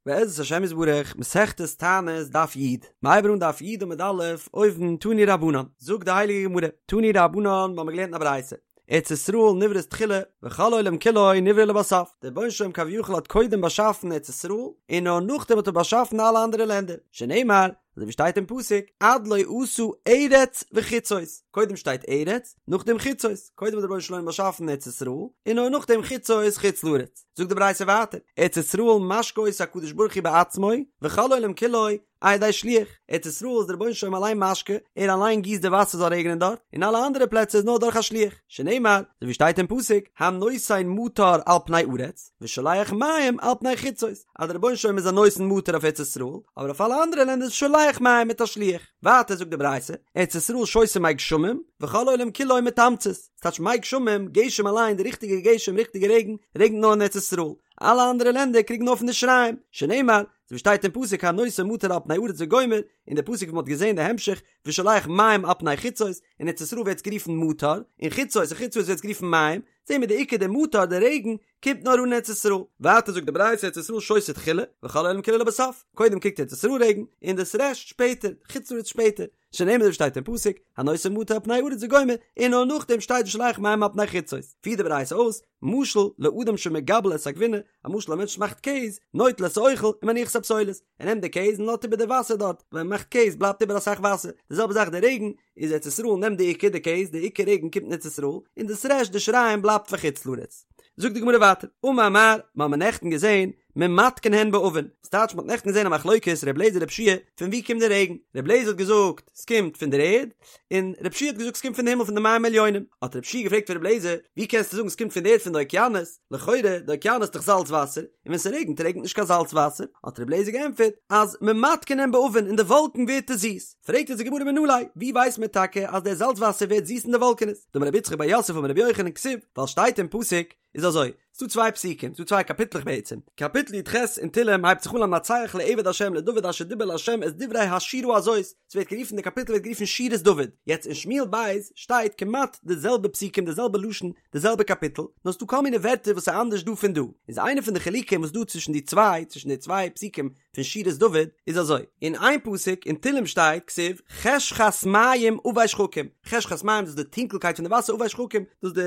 בעזרת השם יתברך, מסכת תענית דף י', מ'הייבן אן דף י' עמוד א', אויבן, תנו רבנן, זאגט די הייליגע גמרא, תנו רבנן, מ'האמיר געלערנט אין א ברייתא, ארץ ישראל נבראת תחילה, וכל העולם כולו נברא לבסוף, דער רבונו של עולם כביכול האט קודם באשאפן ארץ ישראל, און נאר נאכדעם האט ער באשאפן אלע אנדערע לענדער, שנאמר, אזוי ווי שטייט אין פסוק, עד לא עשה ארץ וחוצות, קודם שטייט ארץ, נאכדעם חוצות, קודם האט דער רבונו של עולם באשאפן ארץ ישראל, און נאר נאכדעם חוצות חוץ לארץ. זאגט די ברייתא ווייטער, ארץ ישראל משקה אותה הקדוש ברוך הוא בעצמו, וכל העולם כולו על ידי שליח, ארץ ישראל איז דער רבונו של עולם אליין משקה, ער אליין גיסט די וואסער זאל רעגענען דארט, און אלע אנדערע פלעצער איז נאר דורך א שליח, שנאמר, אזוי ווי שטייט אין פסוק, הנותן מטר על פני ארץ, ושולח מים על פני חוצות, אז דער רבונו של עולם איז א נותן מטר אויף ארץ ישראל, אבער אויף אלע אנדערע לענדער איז שולח מים מיט א שליח. ווייטער זאגט די ברייתא, ארץ ישראל שותה מי גשמים, וכל העולם כולו מתמצית, ס'טייטש מי גשמים, גשם אליין, די ריכטיגע גשם, ריכטיגע רעגן, רעגנט נאר אין ארץ ישראל, אלע אנדערע לענדער קריגן נאר פון די שיריים, שנאמר, אזוי ווי שטייט אין פסוק הנותן מטר על פני ארץ וגומר, און די פסוק ווי מ'האט געזען די המשך, ושולח מים על פני חוצות, אין ארץ ישראל ווערט עס גערופן מטר, און חוצות אין חוץ לארץ ווערט עס גערופן מים, זעהן מיר די עיקר די מטר די רעגן קומט נאר אן אין ארץ ישראל, ווייטער זאגט די ברייתא ארץ ישראל שותה תחילה, וכל העולם כולו לבסוף, קודם קריגט ארץ ישראל רעגן, און דאס רעשט שפעטער, חוץ לארץ שפעטער, שנאמר אזוי ווי שטייט אין פסוק, הנותן מטר על פני ארץ וגומר, און נאר נאכדעם שטייט ושולח מים על פני חוצות, פירט די ברייתא אויס, משל לאדם שמגבל את הגבינה, א משל א מענטש מאכט קעז, נוטל את האוכל ומניח את הפסולת, ער נעמט די קעז און לאזט איבער די וואסער דארט, ווען מען מאכט קעז בלייבט איבער אסאך וואסער, די זעלבע זאך די רעגן, איז ארץ ישראל נעמט די עיקר די קעז, די עיקר רעגן קומט אין ארץ ישראל, און דאס רעשט די שיריים בלייבט פאר חוץ לארץ. זאגט די גמרא ווייטער, אמר מר, מיר האבן נעכטן געזען, ממתקין הן בעבים, ס'טייטש מ'האט נעכטן געזען א מחלוקת ר' לעזער ר' יהושע פון ווי קומט די רעגן, ר' לעזער האט געזאגט ס'קומט פון דער ערד, און ר' יהושע האט געזאגט ס'קומט פון די הימל פון די מים עליונים, האט ר' יהושע געפרעגט פון ר' לעזער, ווי קענסטו זאגן ס'קומט פון די ערד פון די אוקיינוס, לכאורה די אוקיינוס איז דאך זאלץ וואסער, און ווען ס'רעגנט רעגנט נישט קיין זאלץ וואסער, האט ר' לעזער געענטפערט אז ממתקין הן בעבים אין די וואלקן ווערט עס זיס, פרעגט אונז די גמרא מנא ליה, ווי ווייסט מען טאקע אז דער זאלץ וואסער ווערט זיס אין די וואלקענעס, דאמר רב יצחק בר יוסף אמר רבי יוחנן כתיב, ווייל שטייט אין פסוק, איז אזוי, ס'דא צוויי פסוקים, ס'דא צוויי קאפיטלעך בעצם, קאפיטל י"ח אין תהלים הייבט זיך אן למנצח לעבד השם לדוד אשר דיבר להשם את דברי השירה הזאת, ס'ווערט גערופן די קאפיטל ווערט גערופן שירת דוד, יעצט אין שמואל ב' שטייט כמעט די זעלבע פסוקים די זעלבע לשון די זעלבע קאפיטל, נאר ס'דא כל מיני ווערטער וואס איז אנדערש דא פון דא, איז איינע פון די חילוקים וואס דא צווישן די צוויי צווישן די צוויי פסוקים פון שירת דוד איז אזוי, אין איין פסוק אין תהלים שטייט כתיב חשכת מים עבי שחקים, חשכת מים דאס איז די טונקלקייט פון די וואסער עבי שחקים דאס איז די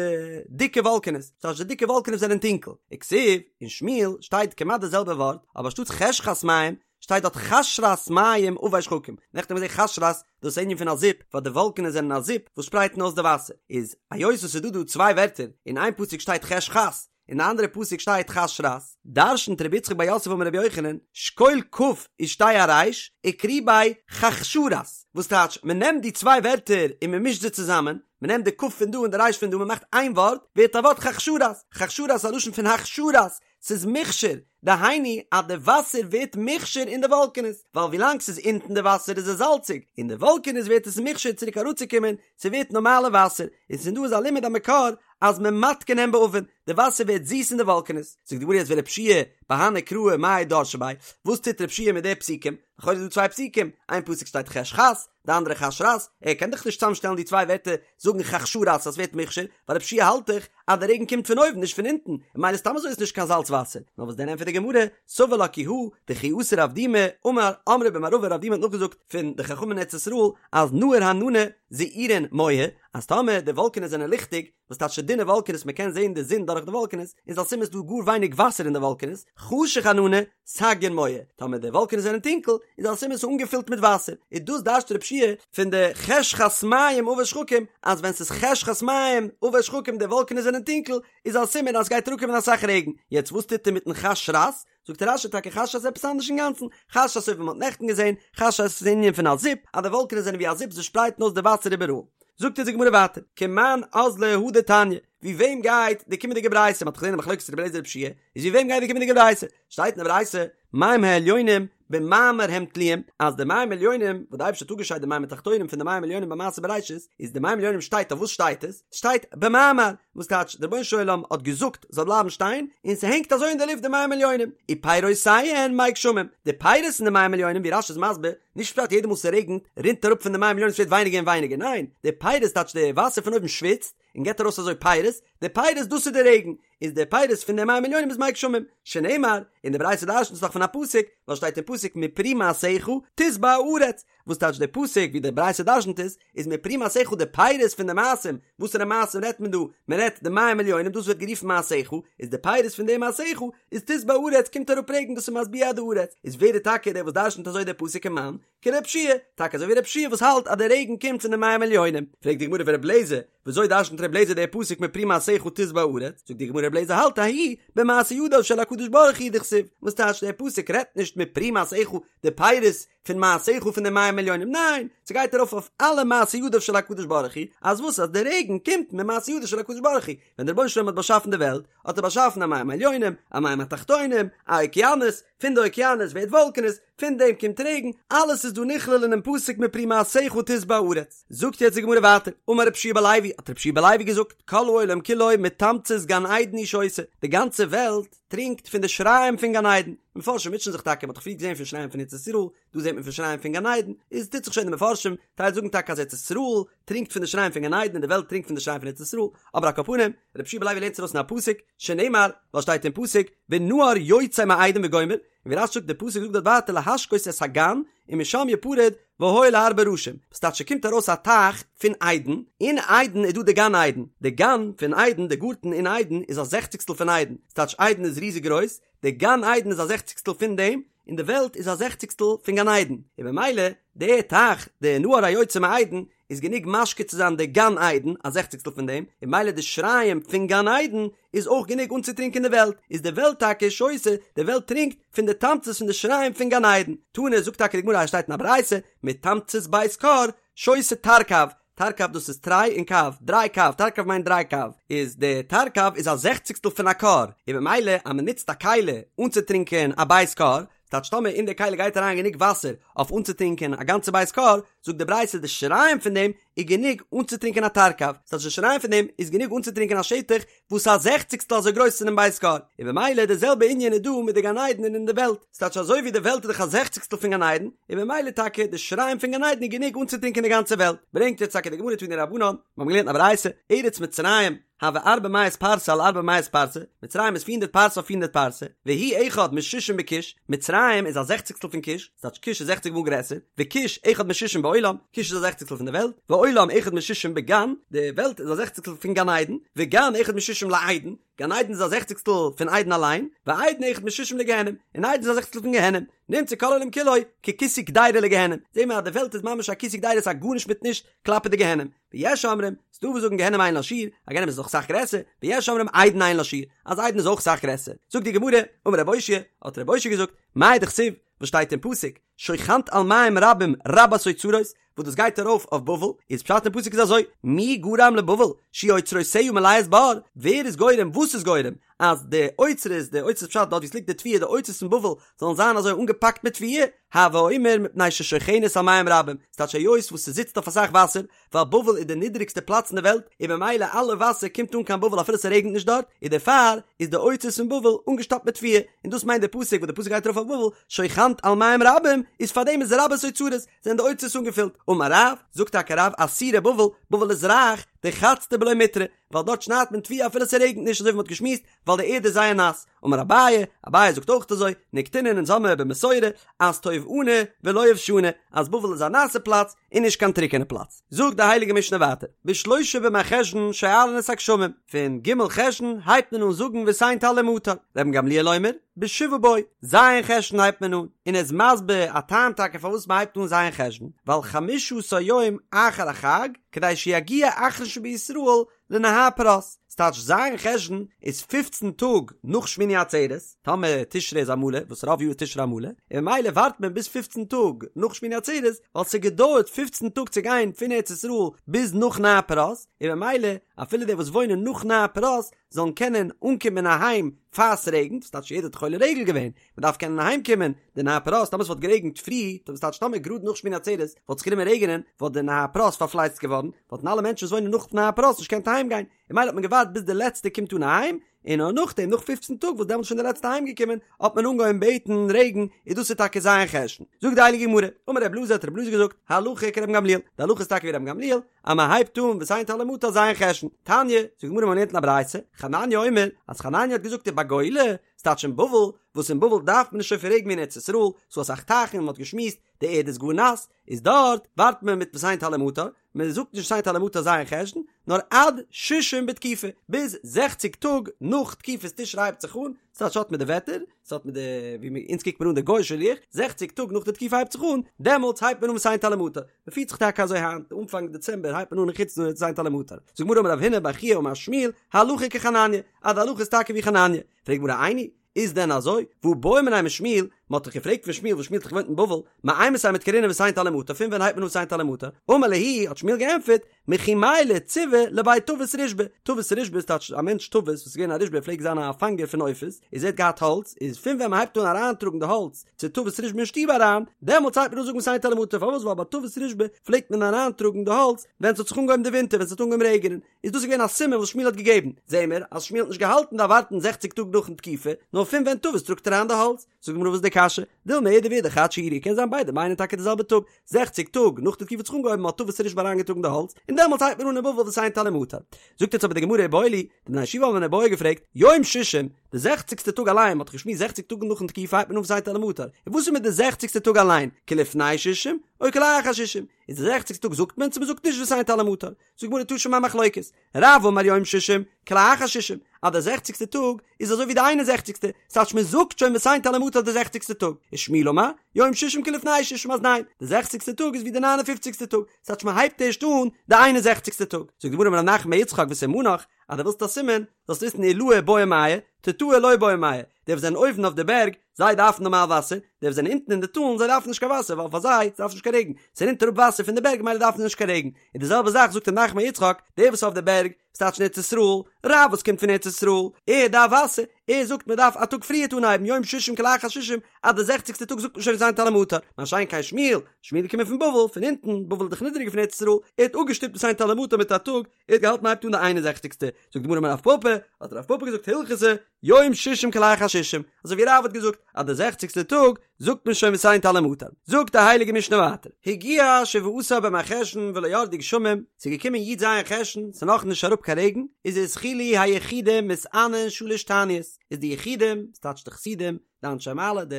דיקע וואלקענעס, דאס הייסט די דיקע וואלקענעס זענען טונקל, וכתיב אין שמואל שטייט כמעט די זעלבע ווארט אבער אנשטאטס חשכת מים שטייט דארט חשרת מים עבי שחקים, נעכטן האבן מיר געזען חשרת דאס איז ענין פון א זיפ ווייל די וואלקענעס זענען א זיפ וואס שפרייטן אויס די וואסער, איז היות עס איז דא דא צוויי ווערטער אין איין פסוק שטייט חשכת אין די אנדערע פסוק שטייט חשרת, דרשנט רבי יצחק בר יוסף אמר רבי יוחנן, שקול כ' ושדי אריש, וקרי ביה חכשרת, וואס טייטש, מען נעמט די צוויי ווערטער און מען מישט זיי צוזאמען, מען נעמט די כ' פון דא און די ריש פון דא, מען מאכט איין ווארט, ווערט א ווארט חכשרת, חכשרת איז א לשון פון הכשרת, ס'איז מוכשר, דהיינו אז די וואסער ווערט מוכשר אין די וואלקענעס, ווייל ווילאנג ס'איז אונטן די וואסער איז עס זאלציג, אין די וואלקענעס ווערט עס מוכשר צוריק אראפצוקומען, ס'ווערט נארמאלע וואסער, און פון דא איז א לימוד א מקור אז ממתקין הן בעבים, די וואסער ווערט זיס אין די וואלקענעס. זאגט די גמרא יעצט ורבי יהושע בהני קראי מאי דרשי ביה, וואס טוט רבי יהושע מיט די פסוקים? לכאורה איז דא צוויי פסוקים, איין פסוק שטייט חשכת, די אנדערע חשרת, ער קען דאך נישט צוזאמשטעלן די צוויי ווערטער זאגן חכשרת אז ס'ווערט מוכשר, ווייל רבי יהושע האלט דאך אז די רעגן קומט פון אויבן נישט פון אונטן, און ממילא סתם אזוי איז נישט קיין זאלץ וואסער. נאר וואס דען ענטפערט די גמרא, סבר לה כי הא, דכי אתא רב דימי, אמר, אמרי במערבא רב דימי האט נאכגעזאגט פון די חכמים אין ארץ ישראל אז נהור ענני זעירין מוהי, אז טאמער די וואלקענעס זענען ליכטיג, וואס טייטש דינע וואלקענעס מען קען זען די זון דורך די וואלקענעס, איז א סימן ס'דא גאר ווייניג וואסער אין די וואלקענעס, חשוך ענני סגיין מוהי, טאמער די וואלקענעס זענען טונקל, איז א סימן ס'איז אנגעפילט מיט וואסער, איז דאס דרש'ט רבי יהושע פון די חשכת מים עבי שחקים, אז ווען ס'איז חשכת מים עבי שחקים די וואלקענעס זענען טונקל, איז א סימן אז ס'גייט אראפקומען אסאך רעגן, יעצט וואס טוט ער מיטן חשרת? זאגט רש"י טאקע חשרת איז עפעס אנדערש אינגאנצן, חשרת אזוי ווי מ'האט נעכטן געזען, חשרת איז ענין פון א זיפ, אז די וואלקענעס זענען ווי א זיפ זיי שפרייטן אויס די וואסער איבעראל. זאגט אונז די גמרא ווייטער, כמאן אזלא הא דתניא, ווי וועם גייט די קומענדיגע ברייתא, מ'האט דאך געזען די מחלוקת רבי אליעזר רבי יהושע, איז ווי וועם גייט די קומענדיגע ברייתא? שטייט אין די ברייתא, מים העליונים במאמר הם תלויים, אז די מים עליונים, וואס די אייבערשטער האט אפגעשיידט די מים התחתונים פון די מים עליונים ביי מעשה בראשית, איז די מים עליונים שטייט אויף וואס שטייט עס? ס'שטייט במאמר, וואס טייטש דער רבונו של עולם האט געזאגט זאל בלייבן שטיין, און ס'הענגט אזוי אין די לופט די מים עליונים, ופירותיהן מי גשמים, די פירות פון די מים עליונים ווי רש"י איז מסביר, נישט פשט יעדע מאל ס'רעגנט רינט אראפ פון די מים עליונים ס'ווערט ווייניגער און ווייניגער, ניין, די פירות טייטש די וואסער פון אויבן שוויצט, און געבט ארויס אזוי פירות, די פירות דאס איז די רעגן, איז די פירות פון די מים עליונים איז מי גשמים, שנאמר, און די ברייתא דרשנ'ט עס דאך פון א פסוק, ווייל שטייט אין פסוק מפרי מעשיך תשבע הארץ, וואס טייטש די פסוק ווי די ברייתא דרשנ'ט עס, איז מפרי מעשיך די פירות פון די מעשים, וואסערע מעשים רעדט מען דא, מען רעדט די מים עליונים דאס ווערט גערופן מעשיך, איז די פירות פון די מעשיך, איז תשבע הארץ קומט אראפ רעגן דאס איז משביע די הארץ, איז ווער איז טאקע דער וואס דרשנ'ט אזוי די פסוק כמאן, כר' יהושע, טאקע אזוי ווי ר' יהושע וואס האלט אז די רעגן קומט פון די מים עליונים. פרעגט די גמרא ור' אליעזר, וויאזוי דרשנ'ט ר' אליעזר די פסוק מפרי מעשיך תשבע הארץ? זאגט די גמרא ר' אליעזר האלט ההוא במעשה ידיו של הקדוש ברוך הוא דכתיב, וואס טייטש דער פסוק רעדט נישט מפרי מעשיך די פירות פון מעשיך פון די מים עליונים, ניין, ס'גייט ארויף אויף אלע מעשה ידיו של הקדוש ברוך הוא, אז וואס אז די רעגן קומט ממעשה ידיו של הקדוש ברוך הוא, ווען דער רבונו של עולם האט באשאפן די וועלט, האט ער באשאפן א מים עליונים, א מים התחתונים, א אוקיינוס, פון די אוקיינוס ווערט וואלקענעס, פון דעם קומט רעגן, אלעס איז דא נכלל אינעם פסוק מפרי מעשיך תשבע הארץ. זאגט יעצט די גמרא ווייטער, אמר רבי יהושע בן לוי, האט רבי יהושע בן לוי געזאגט, כל העולם כולו מתמצית גן עדן הוא שותה, די גאנצע וועלט טרינקט פון די שיריים פון גן עדן, מפרשים מוטשען זיך טאקע, מען האט דאך פריער געזען פון שיריים פון ארץ ישראל, דא זעט מען פון שיריים פון גן עדן, איז טוט זיך שוין די מפרשים, טייל זאגן טאקע אז ארץ ישראל טרינקט פון די שיריים פון גן עדן און די וועלט טרינקט פון די שיריים פון ארץ ישראל, אבער על כל פנים, רבי יהושע בן לוי לערנט עס ארויס אין א פסוק, שנאמר, ווייל שטייט אין פסוק, ונהר יוצא מעדן וגומר, און ווי רש"י זאגט די פסוק זאגט דארט ווייטער להשקות את הגן ומשם יפרד והיה להרבה ראשים, וואס טייטש ס'קומט ארויס א טייך פון עדן, אין עדן איז דא די גן עדן, די גן פון עדן, די גארטן אין עדן איז א זעכציגסטל פון עדן, ס'טייטש עדן איז ריזיג גרויס, די גן עדן איז א זעכציגסטל פון דעם, און די וועלט איז א זעכציגסטל פון גן עדן, און במילא די טייך, די נהר היוצא מעדן, איז גענוג משקה צו זיין די גן עדן, א זעכציגסטל פון דעם, און במילא די שיריים פון גן עדן איז אויך גענוג אנצוטרינקען די וועלט, איז די וועלט טאקע שותה, די וועלט טרינקט פון די תמצית פון די שיריים פון גן עדן. תנא זאגט טאקע די גמרא אז עס שטייט אין א ברייתא, מתמצית בית כור שותה תרקב, תרקב דאס איז תרי און קב, דריי קב, תרקב מיינט דריי קב, איז די תרקב איז א זעכציגסטל פון א כור, און במילא אז מען נוצט א כלי אנצוטרינקען א בית כור, ס'טייטש טאמער אין די כלי גייט אריין גענוג וואסער אויף אנצוטרינקען א גאנצע בית כור, זאגט די ברייתא די שיריים פון דעם איז גענוג אנצוטרינקען א תרקב, ס'טייטש די שיריים פון דעם איז גענוג אנצוטרינקען א שטח וואס איז א זעכציגסטל אזוי גרויס פונעם בית כור, און במילא די זעלבע ענין איז דא מיט די גן עדן און אין די וועלט, ס'טייטש אזוי ווי די וועלט איז דאך א זעכציגסטל פון גן עדן, און במילא טאקע די שיריים פון גן עדן איז גענוג אנצוטרינקען די גאנצע וועלט, ברענגט יעצט טאקע די גמרא תנו רבנן, מיר האבן געלערנט א ברייתא, ארץ מצרים, הוה ארבע מאות פרסה על ארבע מאות פרסה, מצרים איז פיר הונדערט פרסה אויף פיר הונדערט פרסה, והיא אחד משישים בכוש, מצרים איז א זעכציגסטל פון כוש, ס'טייטש כוש איז זעכציג מאל גרעסער, וכוש אחד משישים בעולם, כוש איז א זעכציגסטל פון די וועלט, ועולם אחד משישים בגן, די וועלט איז א זעכציגסטל פון גן עדן, וגן אחד משישים לעדן, גן עדן איז א זעכציגסטל פון עדן אליין, ועדן אחד משישים לגיהנום, און עדן איז א זעכציגסטל פון גיהנום, נמצא כל העולם כולו ככיסוי קדירה לגיהנום, זעהן מיר אז די וועלט איז ממש א כיסוי קדירה ס'איז א גארנישט מיט נישט כלפי די גיהנום. ויש אומרים, ס'דא וואס זאגן גיהנום אין לה שיעור, אז גיהנום איז דאך סאך גרעסער, ויש אומרים עדן אין לה שיעור, אז עדן איז אויך סאך גרעסער. זאגט די גמרא, אמר רב אושעיא, האט רב אושעיא געזאגט, מאי דכתיב, וואס שטייט אין פסוק, שוכנת על מים רבים רבת אוצרות, וואס דאס גייט ארויף אויף בבל, איז פשט אין פסוק איז אזוי, מי גרם לבבל, שיהו אוצרותיה מלאות בר, ווער איז גורם, וואס איז גורם, אז די אוצרות, די אוצרות פשט דארט ווי עס ליגט די תבואה, די אוצרות פון בבל זאלן זיין אזוי אנגעפאקט מיט תבואה, הוי אומר מפני ששוכנת על מים רבים, ס'טייטש היות וואס ס'זיצט אויף אסאך וואסער, ווייל בבל איז די נידריגסטע פלאץ אין די וועלט, און ממילא אלע וואסער קומט אן קיין בבל אפילו ס'רעגנט נישט דארט, און דערפאר איז די אוצרות פון בבל אנגעשטאפט מיט תבואה, און דאס מיינט די פסוק וואס די פסוק גייט ארויף אויף בבל, שוכנת על מים רבים, איז פארדעם איז רבת אוצרות, זענען די אוצרות אנגעפילט, אמר רב, זאגט טאקע רב עתירה בבל, בבל איז רייך, דחצדי בלא מיטרא, ווייל דארט שניידט מען תבואה אפילו ס'רעגנט נישט אזוי ווי מ'האט געשמועסט, ווייל די ערד איז זייער נאס. אמר אביי, אביי זאגט אויך אזוי, נקטינן אונז האמיר במסורה, אז טובעני ולא יובשני, אז בבל איז א נאסע פלאץ און נישט קיין טרוקענע פלאץ. זאגט די הייליגע משנה ווייטער, בשלושה במרחשון שואלין את הגשמים, פון ג' חשון הייבט מען אן זאגן ותן טל ומטר, רבן גמליאל אומר, בשבעה בו, ז' חשון הייבט מען אן, און ער איז מסביר א טעם טאקע פארוואס מ'הייבט אן ז' חשון, ווייל חמשה עשר יום אחר החג, כדי שיגיע אחרון שבישראל לנהר פרת, ס'טייטש ז' חשון איז פופצן טאג נאך שמיני עצרת, טאמער תשרי איז א מלא, וואס רוב יאר איז תשרי א מלא, און ממילא ווארט מען ביז פופצן טאג נאך שמיני עצרת, ווייל ס'געדויערט פופצן טאג צו גיין פון ארץ ישראל ביז נאך נהר פרת, און ממילא אפילו די וואס וואוינען נאך נהר פרת זאלן קענען אנקומען אהיים פאר ס'רעגנט, ס'טייטש יעדער האט דאך עולה רגל געווען, מ'דארף קענען אהיים קומען, די נהר פרת, טאמער ס'וואלט גערעגנט פרי, דאס טייטש טאמער גראד נאך שמיני עצרת וואלט זיך גענומען רעגענען, וואלט די נהר פרת פארפלייצט געווארן, וואלטן אלע מענטשן וואס וואוינען נאך נהר פרת נישט געקענט אהיים גיין, און ממילא האט מען געווארט. געווארט ביז די לעצטע קומט אן אהיים, און נאר נאכדעם נאך פופצן טאג וואס דעמאלטס איז שוין די לעצטע אהיים געקומען האט מען אנגעהויבן בעטן רעגן, איז דאס איז טאקע ז' חשון. זאגט די הייליגע גמרא, אמר רב אלעזר האט רב אלעזר געזאגט, הלכה כרבן גמליאל, די הלכה איז טאקע ווי רבן גמליאל, אז מען הייבט אן ותן טל ומטר ז' חשון. תניא, זאגט די גמרא מען לערנט אין א ברייתא, חנניה אומר, אז חנניה האט געזאגט ובגולה, ס'טייטש אין בבל, וואס אין בבל דארף מען נישט אזויפיל רעגן ווי אין ארץ ישראל, ס'דא אסאך טייכן און מען האט געשמועסט, די ערד איז גאר נאס, איז דארט ווארט מען מיט ותן טל ומטר, מען זאגט נישט ותן טל ומטר ז' חשון, נאר עד ששים בתקופה, ביז זעכציג טאג נאך תקופת תשרי הייבט זיך אן, ס'טייטש האט מיט די וועטער, ס'האט מיט די ווי מיר אונז קוקט מען אן די גוי'אישע לוח, זעכציג טאג נאך די תקופה הייבט זיך אן, דעמאלטס הייבט מען אן ותן טל ומטר, מען פירט זיך טאקע אזוי היינט, אנפאנג דעצעמבער הייבט מען אן אין חוץ לארץ ותן טל ומטר. זאגט די גמרא אמר רב הונא בר חייא אמר שמואל, הלכה כחנניה, אז די הלכה איז טאקע ווי חנניה, פרעגט די גמרא איני, איז דען אזוי? והא בעו מיניה משמואל, מען האט דאך געפרעגט פון שמואל וואס שמואל האט דאך געוואוינט אין בבל, מאימתי מדכרינן ותן טל ומטר, פון ווען הייבט מען אן ותן טל ומטר? אמר להו, האט שמואל געענטפערט, מכי מיילי ציבי לבי טבית רישבא, טבית רישבא איז טייטש א מענטש טבית וואס איז געווען א רישבא ער פלעגט זיין א פאנגער פון עופות, איז ער האט געהאט האלץ, איז פון ווען מען הייבט אן אריינטראגן די האלץ צו טבית רישבא אין שטוב אריין, דעמאלטס הייבט מען אן זאגן ותן טל ומטר, פארוואס ווייל ביי טבית רישבא פלעגט מען אריינטראגן די האלץ ווען ס'האט זיך אנגעהויבן די ווינטער ווען ס'האט אנגעהויבן רעגענען, איז דאס געווען א סימן וואס שמואל האט געגעבן, זעהן מיר אז שמואל האט נישט געהאלטן דארף ווארטן זעכציג טאג נאכן תקופה, נאר פון ווען טבית טראגט אריין די האלץ. זאגט די גמרא וואס איז די קשיא? דילמא אידי ואידי חד שיעורא קען זיין ביידע מיינען טאקע די זעלבע טאג, זעכציג טאג נאך די תקופה האט זיך אנגעהויבן האט טבית רישבא אריינגעטראגן די האלץ, און דעמאלטס הייבט מען אן אין בבל ותן טל ומטר. זאגט יעצט אבער די גמרא איבעיא להו, די בני הישיבה האבן אן איבעיא געפרעגט, יום שישים, די זעכציגסטע טאג אליין, מ'האט דאך געשמועסט זעכציג טאג נאכן תקופה הייבט מען אן ותן טל ומטר, און וואס איז מיט די זעכציגסטע טאג אליין, כלפני שישים, או כלאחר שישים, איז די זעכציגסטע טאג זאגט מען צו מ'זאגט נישט ותן טל ומטר? זאגט די גמרא תא שמע מחלוקת, רב אמר יום שישים, כלאחר שישים, אז די זעכציגסטע טאג איז אזוי ווי די איין און זעכציגסטע, ס'טייטש מען זאגט שוין ותן טל ומטר די זעכציגסטע טאג, ושמואל אמר, יום שישים כלפני שישים אז ניין, די זעכציגסטע טאג איז ווי די ניין און פופציגסטע טאג, ס'טייטש מען הייבט ערשט אן די איין און זעכציגסטע טאג. זאגט די גמרא אמר רב נחמן בר יצחק וסימנך, אז דו ווילסט א סימן, זאלסט וויסן עילאי בעו מיא, תתאי לא בעו מיא, די וואס זענען אויבן אויף די בערג, זיי דארפן נארמאל וואסער, די וואס זענען אונטן אין די טאלן, זיי דארפן נישט קיין וואסער, ווייל פאר זיי, ס'דארף נישט קיין רעגן, ס'רינט אראפ וואסער פון די בערג ממילא דארפן זיי נישט קיין רעגן, און די זעלבע זאך זאגט רב נחמן בר יצחק, דער וואס אויף די בערג, ס'טייטש אין ארץ ישראל, רב וואס קומט פון ארץ ישראל, ער דארף וואסער, ער זאגט מען דארף א טאג פריערט אנהייבן יום שישים כלאחר שישים, אז די זעכציגסטע טאג זאגט מען שוין ותן טל ומטר, מה שאין כן שמואל, שמואל איז געקומען פון בבל, פון אונטן, בבל איז דאך נידעריגער פון ארץ ישראל, ער האט אפגעשטופט ותן טל ומטר מיט א טאג, ער האט געהאלטן מ'הייבט אן די איין און זעכציגסטע, זאגט די גמרא אמר רב פפא, האט רב פפא געזאגט הלכתא, יום שישים כלאחר שישים, אזוי ווי רב האט געזאגט אז די זעכציגסטע טאג זאגט מען שוין ותן טל ומטר, זאגט די הייליגע משנה ווייטער, הגיע שבעה עשר במרחשון ולא ירדו גשמים, ס'איז געקומען י ז חשון, ס'איז נאך נישט אראפ קיין רעגן, איז התחילו היחידים מתענין שלש תעניות, איז די יחידים, ס'טייטש די חסידים, די אנשי מעלה, די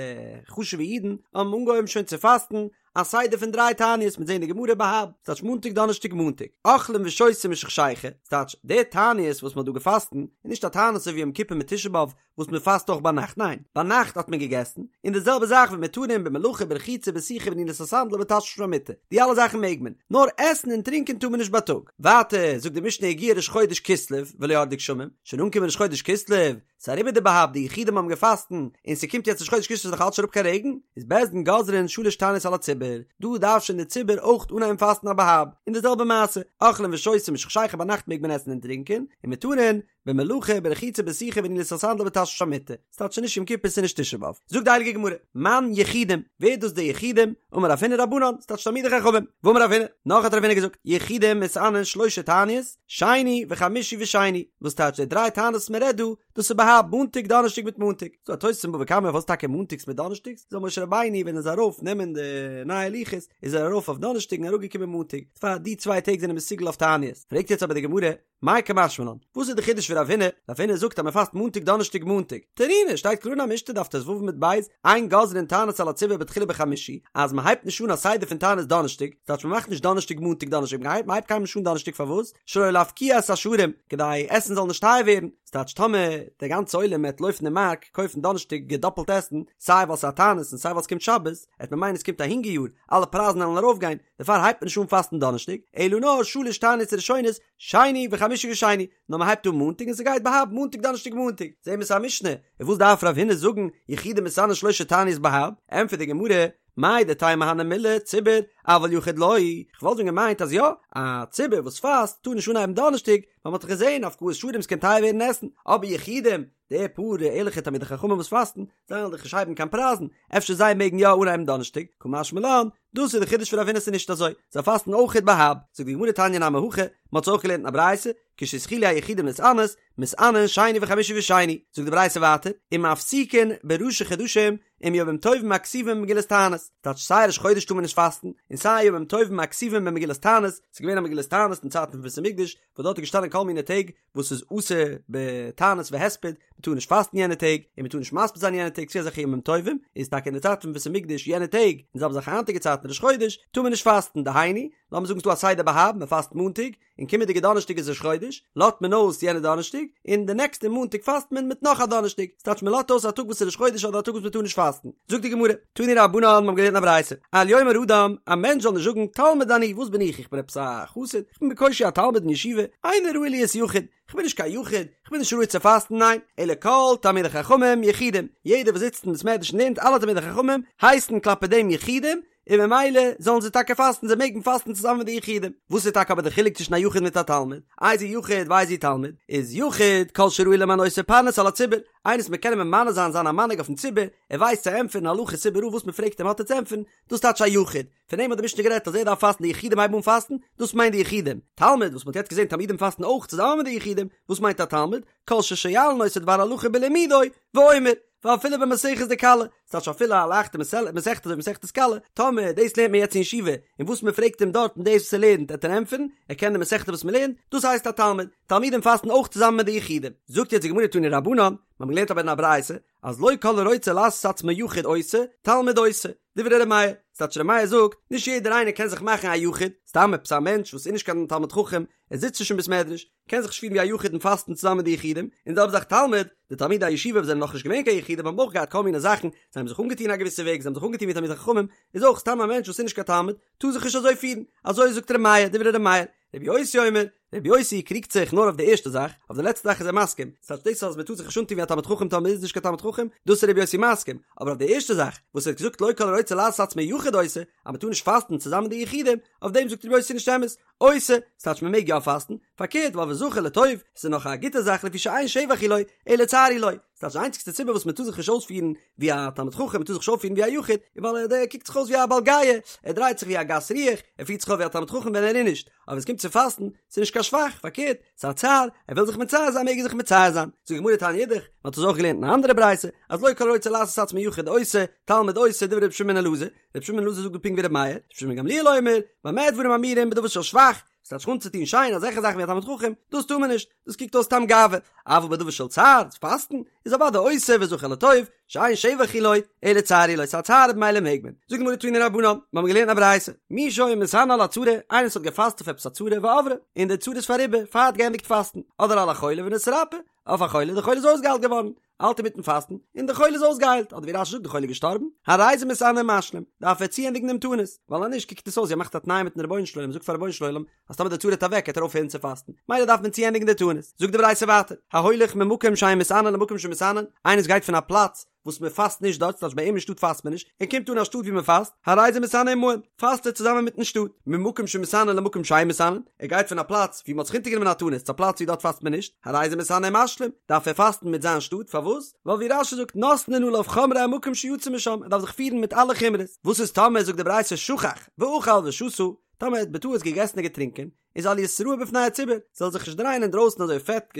חשוב'ע אידן, האבן אנגעהויבן שוין צו פאסטן, א סדר פון דריי תעניות מ'וועט זעהן די גמרא בה"ב, ס'טייטש מאנטאג דאנערשטאג מאנטאג, אוכלים ושותים משחשיכה, ס'טייטש די תעניות וואס מ'האט דא געפאסטן איז נישט א תענית אזוי ווי יום כיפור מיט תשעה באב וואס מ'פאסט אויך ביינאכט, ניין, ביינאכט האט מען געגעסן, און די זעלבע זאך ומותרין במלאכה ברחיצה בסיכה בנעילת הסנדל ובתשמיש המיטה, די אלע זאכן מעג מען, נאר עסן און טרינקען טאר מען נישט בייטאג. ווייטער זאגט די משנה הגיע ראש חודש כסלו ולא ירדו גשמים, שוין אנגעקומען ראש חודש כסלו, ס'איז אריבער די בה"ב, די יחידים האבן געפאסטן, און ס'קומט יעצט ראש חודש כסלו ס'איז נאך אלץ נישט אראפ קיין רעגן, איז בית דין גוזרין שלש תעניות על הציבור, דא דארף שוין די ציבור אויך אנהייבן פאסטן א בה"ב, און די זעלבע מעשה, אוכלים ושותים משחשיכה ביינאכט מעג מען עסן און טרינקען, ומותרין, במלאכה, ברחיצה בסיכה בנעילת הסנדל ובתשמיש המיטה, ס'טייטש נישט יום כיפור ס'נישט תשעה באב. זאגט די הייליגע גמרא, מאן יחידים, ווער איז דאס די יחידים? אמר רב הונא רבנן, ס'טייטש תלמידי חכמים, ואמר רב הונא, נאך האט רב הונא געזאגט, יחידים מתענין שלשה תעניות, שני וחמישי ושני, וואס טייטש די דריי תעניות וואס מען רעדט דא, דאס איז בה"ב מאנטאג דאנערשטאג מיט מאנטאג, ס'דא א תוס' אין בבא קמא פארוואס טאקע מאנטאגס מיט דאנערשטאגס, זאל משה רבינו ווען ער איז ארויף נעמען די נייע לוחות איז ער ארויף אויף דאנערשטאג און אראפגעקומען מאנטאג, פאר די צוויי טעג זענען מסוגל אויף תעניות, פרעגט יעצט אבער די גמרא, מאי קא משמע לן, וואס איז די חידוש פון רב הונא, רב הונא זאגט אז מען פאסט מאנטאג דאנערשטאג מאנטאג, תנינא, שטייט קלאר אין א משנה דף ט"ו עמוד ב', אין גוזרין תענית על הציבור בתחילה בחמישי, אז מען הייבט נישט אן א סדר פון תענית דאנערשטאג, ס'טייטש מען מאכט נישט דאנערשטאג מאנטאג דאנערשטאג, מען הייבט קיינמאל נישט אן דאנערשטאג פארוואס? שלא להפקיע את השערים, כדי עסן זאל נישט טייער ווערן, ס'טייטש טאמער דער גאנצע עולם העט לויפן אין מארק קויפן דאנערשטאג געדאפלט עסן, סיי ווייל ס'איז א תענית און סיי ווייל ס'קומט שבת, העט מען מיינען ס'קומט א הונגער יאר, אלע פרייזן וועלן ארויפגיין, דערפאר הייבט מען נישט אן פאסטן דאנערשטאג, אלא נאר שלש תעניות ראשונות, שני וחמישי ושני, נאר מען הייבט אן מאנטאג און ס'גייט בה"ב מאנטאג דאנערשטאג מאנטאג, זעהן מיר ס'איז א משנה, און וואס דארף רב הונא זאגן יחידים מתענין שלשה תעניות בה"ב, ענטפערט די גמרא, מהו דתימא הני מילי ציבור, אבל יחיד לא, כ'וואלט ווען געמיינט אז יא, א ציבור וואס פאסט טאר נישט אנהייבן דאנערשטאג, ווייל מ'האט דאך געזעהן הפקעת שערים ס'קען טייער ווערן עסן, אבער יחידים, די פאר ערליכע תלמידי חכמים וואס פאסטן, זיי וועלן דאך נישט הייבן קיין פרייזן, אפשר זיי מעגן יא אנהייבן דאנערשטאג, קא משמע לן, דאס איז די חידוש פון רב הונא ס'איז נישט אזוי, זיי פאסטן אויכעט בה"ב, זאגט די גמרא תניא נמי הכי, מ'האט עס אויך געלערנט אין א ברייתא, כשהתחילו היחידים להתענות, מתענין שני וחמישי ושני, זאגט די ברייתא ווייטער, ומפסיקין בראשי חדשים עם ימים טובים הכתובים במגילת תענית, טייטש סיי ראש חודש טאר מען נישט פאסטן, און סיי ימים טובים הכתובים במגילת תענית, ס'איז געווען א מגילת תענית אין צייטן פון בית המקדש, וואס דארט איז געשטאנען כל מיני טעג וואס איז אסור בתענית והספד, מען טאר נישט פאסטן יענע טעג, און מען טאר נישט מספיד זיין יענע טעג, ס'איז אזעלכע ימים טובים, איז טאקע אין די צייט פון בית המקדש יענע טעג, און זעלבע זאך היינטיגע צייטן ראש חודש, טאר מען נישט פאסטן, דהיינו, לאמיר זאגן ס'איז דא א סדר בה"ב, מען פאסט מאנטאג, און קומענדיגע דאנערשטאג איז ראש חודש, לאזט מען אויס יענע דאנערשטאג, און די נעקסטע מאנטאג פאסט מען מיט נאך א דאנערשטאג, ס'טייטש מען לאזט אויס א טאג וואס איז ראש חודש אדער א טאג וואס מען טאר נישט פאסטן. זאגט די גמרא, תנו רבנן, מיר האבן געלערנט א ברייתא, אל יאמר אדם, א מענטש זאל נישט זאגן, תלמיד אני, וואס בין איך, איך בין עפעס א חסיד, איך בין בקושי א תלמיד אין ישיבה, איני ראוי להיות יחיד, איך בין נישט קיין יחיד, איך בין נישט ראוי צו פאסטן, ניין, אלא כל תלמידי חכמים יחידים, יעדער וואס זיצט אין בית מדרש און לערנט אלע תלמידי חכמים הייסן כלפי דעם יחידים, און ממילא זאלן זיי טאקע פאסטן, זיי מעגן פאסטן צוזאמען מיט די יחידים. וואס איז טאקע אבער די חילוק צווישן א יחיד מיט א תלמיד? איזהו יחיד ואיזהו תלמיד? איז יחיד כל שראוי למנותו פרנס על הציבור, איינער וואס מען קען אים ממנה זיין זיין א מנהיג אויפן ציבור, ער ווייסט צו ענטפערן הלכות איבעראל וואס מען פרעגט אים האט ער צו ענטפערן, דאס טייטש א יחיד. פון דעם האט די משנה גערעדט אז ער דארף פאסטן די יחידים הייבן אן פאסטן, דאס מיינט די יחידים. תלמיד, וואס מען האט יעצט געזען תלמידים פאסטן אויך צוזאמען מיט די יחידים, וואס מיינט א תלמיד? כל ששואלין אותו דבר הלכה בלימודו, ואומר, ואפילו במסכת דכלה, ס'טייטש אפילו א לייכטע מסכת אזוי ווי מסכת כלה, טאמער דאס לערנט מען יעצט אין ישיבה, און וואס מען פרעגט אים דארט און דאס וואס ער לערנט עט ער ענטפערן, ער קען די מסכת וואס מען לערנט, דאס הייסט א תלמיד, תלמידים פאסטן אויך צוזאמען מיט די יחידים. זאגט יעצט די גמרא תנו רבנן, מיר האבן געלערנט אבער אין א ברייתא, אז לא כל הרוצה לעשות עצמו יחיד עושה, תלמיד עושה, דברי ר' מאיר, ס'טייטש ר' מאיר זאגט, נישט יעדער איינער קען זיך מאכן א יחיד, סתם עפעס א מענטש וואס איז נישט קיין תלמיד חכם, ער זיצט נישט אין בית מדרש, קען זיך נישט פירן ווי א יחיד און פאסטן צוזאמען מיט די יחידים, און די זעלבע זאך תלמיד, די תלמידי הישיבה וואס זענען נאכנישט געווען קיין יחידים האבן אויך געהאט כל מיני זאכן, זיי האבן זיך אנגעטון א געוויסע וועג, זיי האבן זיך אנגעטון ווי תלמידי חכמים, איז אויך סתם א מענטש וואס איז נישט קיין תלמיד, טאר זיך נישט אזוי פירן, אזוי זאגט ר' מאיר, דברי ר' מאיר, רבי יוסי אומר, רבי יוסי קריגט זיך נאר אויף די ערשטע זאך, אויף די לעצטע זאך איז ער מסכים, ס'טייטש דאס אז מ'טאר זיך נישט אנטון ווי א תלמיד חכם טאמער מ'איז נישט קיין תלמיד חכם, דאס איז רבי יוסי מסכים, אבער אויף די ערשטע זאך, וואס ער האט געזאגט לא כל הרוצה לעשות עצמו יחיד עושה, אז מ'טאר נישט פאסטן צוזאמען מיט די יחידים, אויף דעם זאגט רבי יוסי נישט אמת, עושה, ס'טייטש מ'מעג יא פאסטן, פארקערט ווייל וזכה לטוב, ס'איז נאך א גוטע זאך לפי שאין שבח הוא לו, אלא צער הוא לו, ס'טייטש די איינציגסטע סיבה וואס מ'טאר זיך נישט אויספירן ווי א תלמיד חכם, מ'טאר זיך נישט אויפפירן ווי א יחיד, איז ווייל ער קוקט זיך אויס ווי א בעל גאוה, ער דרייט זיך ווי א גס רוח, ער פירט זיך אויף ווי א תלמיד חכם ווען ער איז נישט, אבער ווען ס'קומט צו פאסטן, ס'איז נישט קיין שבח, פארקערט, ס'איז א צער, ער וויל זיך מצער זיין מעג ער זיך מצער זיין. זאגט די גמרא תניא אידך, מ'האט עס אויך געלערנט אין א אנדערע ברייתא, אז לא כל הרוצה לעשות עצמו יחיד עושה, תלמיד עושה, דברי רבי שמעון בן אלעזר, רבי שמעון בן אלעזר זאגט דא פונקט ווי רבי מאיר, רבי שמעון בן גמליאל אומר, במה דברים אמורים בדבר של שבח, ס'טייטש זיך אנצוטון שיין אזעלכע זאכן ווי א תלמיד חכם, דאס טאר מען נישט, דאס קוקט אויס סתם גאווה, אבל בדבר של צער, פאסטן, איז אוודאי עושה וזכה לטוב, שאין שבח הוא לו, אלא צער הוא לו, ס'איז א צער במילא מעג מען. זאגט די גמרא תנו רבנן, מיר האבן געלערנט א ברייתא, מי שהיה מתענה על הצרה, איינער וואס האט געפאסט אויף עפעס א צרה ועברה, און די צרה איז פאריבער, פאר ער האט געענדיגט פאסטן, אדער על החולה ונתרפא, אויף א חולה, די חולה איז אויסגעהיילט געווארן, האלט אינמיטן פאסטן, און די חולה איז אויסגעהיילט, אדער ווי רש"י זאגט די חולה איז געשטארבן, הרי זה מתענה ומשלים, דארף ער צוענדיגן דעם תענית, ווייל אז נישט קוקט עס אויס ווי ער מאכט א תנאי מיטן רבונו של עולם, זאגט פאר רבונו של עולם, אז טאמער די צרה וועט אוועק וועט ער אויפהערן צו פאסטן, מילא דארף מען צוענדיגן די תענית. זאגט די ברייתא ווייטער, ההולך ממקום שאין מתענין למקום שמתענין, איינער וואס גייט פון א פלאץ וואס מען פאסט נישט דארט, ס'טייטש ביי אים אין שטאט פאסט מען נישט, און קומט אן א שטאט ווי מען פאסט, הרי זה מתענה עמהן, פאסט ער צוזאמען מיטן שטאט, ממקום שמתענין למקום שאין מתענין, ער גייט פון א פלאץ ווי מען האט זיך אונטערגענומען א תענית צו א פלאץ ווי דארט פאסט מען נישט, הרי זה מתענה ומשלים, דארף ער פאסטן מיט זיין שטאט, פארוואס? ווייל ווי רש"י זאגט נותנין עליו חומרי המקום שיצא משם, ער דארף זיך פירן מיט אלע חומרות, וואס איז טאמער זאגט די ברייתא שכח ואכל ושתה, טאמער ער האט בטעות געגעסן און געטרינקען, איז אל יתראה בפני הציבור, זאל זיך נישט דרייען אינדרויסן אזוי פעט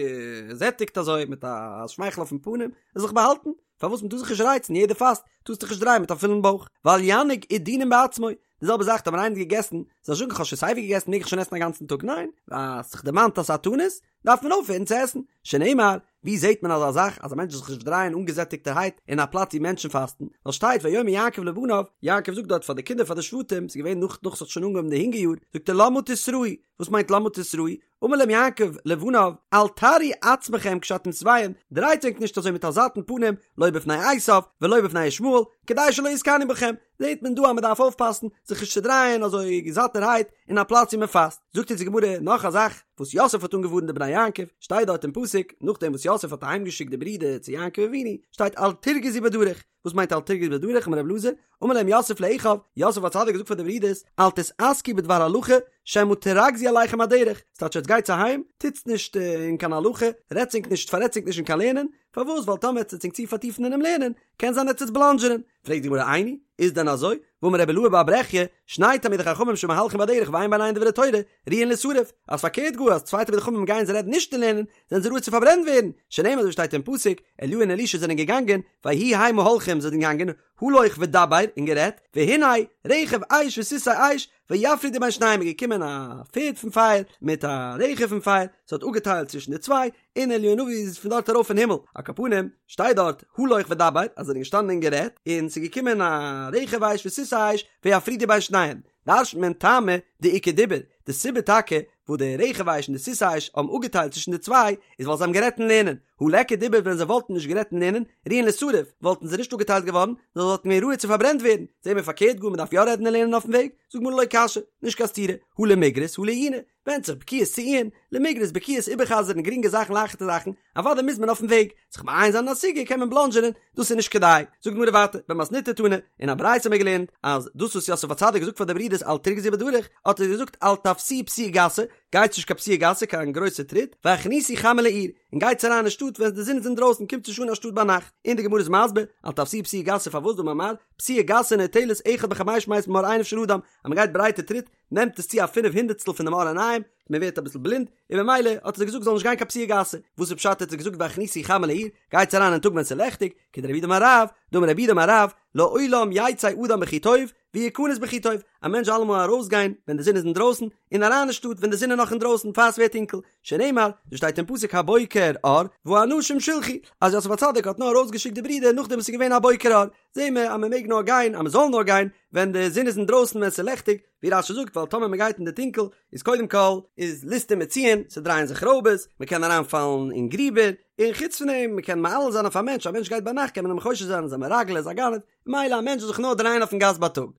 געזעטיגט אזוי מיט א שמייכל אויפן פנים, ער זאל זיך באהאלטן, פארוואס מען טאר זיך נישט רייצן, יעדער פאסט, טארסט דיך נישט דרייען מיט א פולן בויך, ואל ינהיג עידונין בעצמו, די זעלבע זאך טאמער איינער האט געגעסן, זאל נישט זאגן כ'האב שוין סייווי געגעסן מעג איך שוין עסן א גאנצן טאג, ניין, האסט זיך דערמאנט אז ס'איז א תענית, דארף מען אויפהערן צו עסן, שנאמר, ווי זעט מען אזא זאך אז א מענטש זאל זיך נישט דרייען אנגעזעטיגטערהייט אין א פלאץ ווי מענטשן פאסטן, ווייל שטייט ויאמר יעקב לבניו, יעקב זאגט דארט פאר די קינדער פאר די שבטים, ס'איז געווען נאך נאך ס'האט שוין אנגעהויבן די הונגער יאר, זאגט ער למה תתראו, וואס מיינט למה תתראו? אמר להם יעקב לבניו, אל תראו עצמכם כשאתם שבעים, דרייט ענק נישט אזוי מיט א זאטן פנים, לא בפני עשיו ולא בפני ישמעאל, כדי שלא יתקנאו בכם, זעט מען דא אז מען דארף אויפפאסן זיך נישט צו דרייען אזוי זאטערהייט אין א פלאץ ווי מען פאסט. זאגט אונז די גמרא נאך א זאך וואס יוסף האט אנגעווארנט די בני יעקב, שטייט דארט אין פסוק, נאכדעם וואס יוסף האט אהיימגעשיקט די ברידער צו יעקב אבינו, שטייט אל תרגזו בדרך, וואס מיינט אל תרגזו בדרך, אמר רבי אלעזר, אמר להם יוסף לאחיו, יוסף הצדיק האט געזאגט פאר די ברידערס, אל תתעסקו בדבר הלכה, שמא תרגזו עליכם הדרך, ס'טייטש עטס גייטס אהיים, טוטס נישט אין קיין הלכה, רעדטס ענק נישט פאררעדטס ענק נישט אין קיין לערנען, פארוואס ווייל טאמער עטס וועטס ענק צו פארטיפן אינעם לערנען, קען זיין עטס וועטס בלאנדזשענען, פרעגט די גמרא איני, איז דען אזוי? והאמר רבי אילעא בר ברכיה, שני תלמידי חכמים שמהלכים בדרך ואין ביניהן דברי תורה, ראויין לישרף, אז פארקערט גאר אז צוויי תלמידי חכמים גייען זיי רעדן נישט אין לערנען, זענען זיי ראוי צו פארברענט ווערן, שנאמר אזוי שטייט אין פסוק, אליהו און אלישע זענען געגאנגען, ויהי המה הולכים זיי זענען געגאנגען, הלוך ודבר, און גערעדט, והנה, רכב אש וסוסי אש, ויפרידו בין שניהם איז געקומען א פערד פון פייער מיט א רכב פון פייער, ס'האט אפגעטיילט צווישן די צוויי, און אליהו הנביא איז פון דארט ארויף אין הימל, על כל פנים, שטייט דארט, הלוך ודבר, אז זיי זענען געשטאנען און גערעדט, און ס'איז געקומען א רכב אש וסוסי אש, ויפרידו בין שניהם, דרש'נט מען טעמא דאיכא דיבור, די סיבה טאקע וואס די רכב אש און די סוסי אש האבן אפגעטיילט צווישן די צוויי, איז ווייל זיי האבן גערעדט אין לערנען, הא ליכא דיבור ווען זיי וואלטן נישט גערעדט אין לערנען, ראויין לישרף, וואלטן זיי נישט אפגעטיילט געווארן, נאר זיי וואלטן געווען ראוי צו פארברענט ווערן, זעהן מיר פארקערט גאר מען דארף יא רעדן אין לערנען אויפן וועג, זאגט גמרא לא קשיא, נישט קיין סתירה, הא למיגרס הא לעיוני, ווענדט זיך בקיאות צו עיון, למיגרס בקיאות איבערחזר'ן גרינגע זאכן לייכטע זאכן, אוודאי מוז מען אויפן וועג, זיך מעיין זיין אין א סוגיא קען מען בלאנדזשענען, דאס איז נישט כדאי. זאגט גמרא ווייטער, במתניתא תנא, אין א ברייתא האבן מיר געלערנט, אז דאס וואס יוסף הצדיק האט געזאגט פאר די ברידערס אל תרגזו בדרך, האט ער געזאגט אל תפסיעו פסיעה גסה, גייטס נישט קיין פסיעה גסה קיין גרויסע טריט, והכניסו חמה לעיר, און גייטס אריין אין שטאט ווען די זון איז אינדרויסן, קומטס נישט אן אין שטאט ביינאכט. און די גמרא איז מסביר, אל תפסיעו פסיעה גסה פארוואס דאמר מר, פסיעה גסה נוטלת אחד בחמש מאות ממאור עיניו של אדם, אז מען גייט ברייטע טריט, נעמט עס צו א פינף הונדערטסטל פון די מאור עיניים, מען ווערט אביסל בלינד, און ממילא האט ער זיי געזאגט זאל נישט גיין קיין פסיעה גסה, וואס איז פשט האט ער זיי געזאגט והכניסו חמה לעיר, גייטס אריין אין טאג ווען ס'איז לעכטיג, כדרב יהודה אמר רב, דאמר רב יהודה אמר רב, לעולם יצא אדם בכי טוב, ויכנס בכי טוב, א מענטש זאל אלעמאל ארויסגיין ווען די זון איז אינדרויסן, און אריין אין שטאט ווען די זון איז נאך אינדרויסן פאר ס'ווערט טונקל, שנאמר, דאס שטייט אין פסוק הבוקר אור, והאנשים שילחו, אז יוסף הצדיק האט נאר ארויסגעשיקט די ברידער נאכדעם וואס ס'איז געווען א בוקר אור, זעהן מיר אז מען מעג נאר גיין, אז מען זאל נאר גיין, ווען די זון איז אינדרויסן ווען ס'איז לעכטיג, ווי רש"י זאגט ווייל טאמער מען גייט אין די טונקל איז קודם כל איז ליסטים מצויין, ס'דרייען זיך רויבערס, מען קען אריינפאלן אין גריבער, און חוץ פון דעם מען קען מעליל זיין אויף א מענטש, א מענטש גייט ביינאכט קען מען אים חושד זיין ער איז א מרגל ער איז א גנב, ממילא א מענטש זאל זיך נאר דרייען אויפן גאס בייטאג.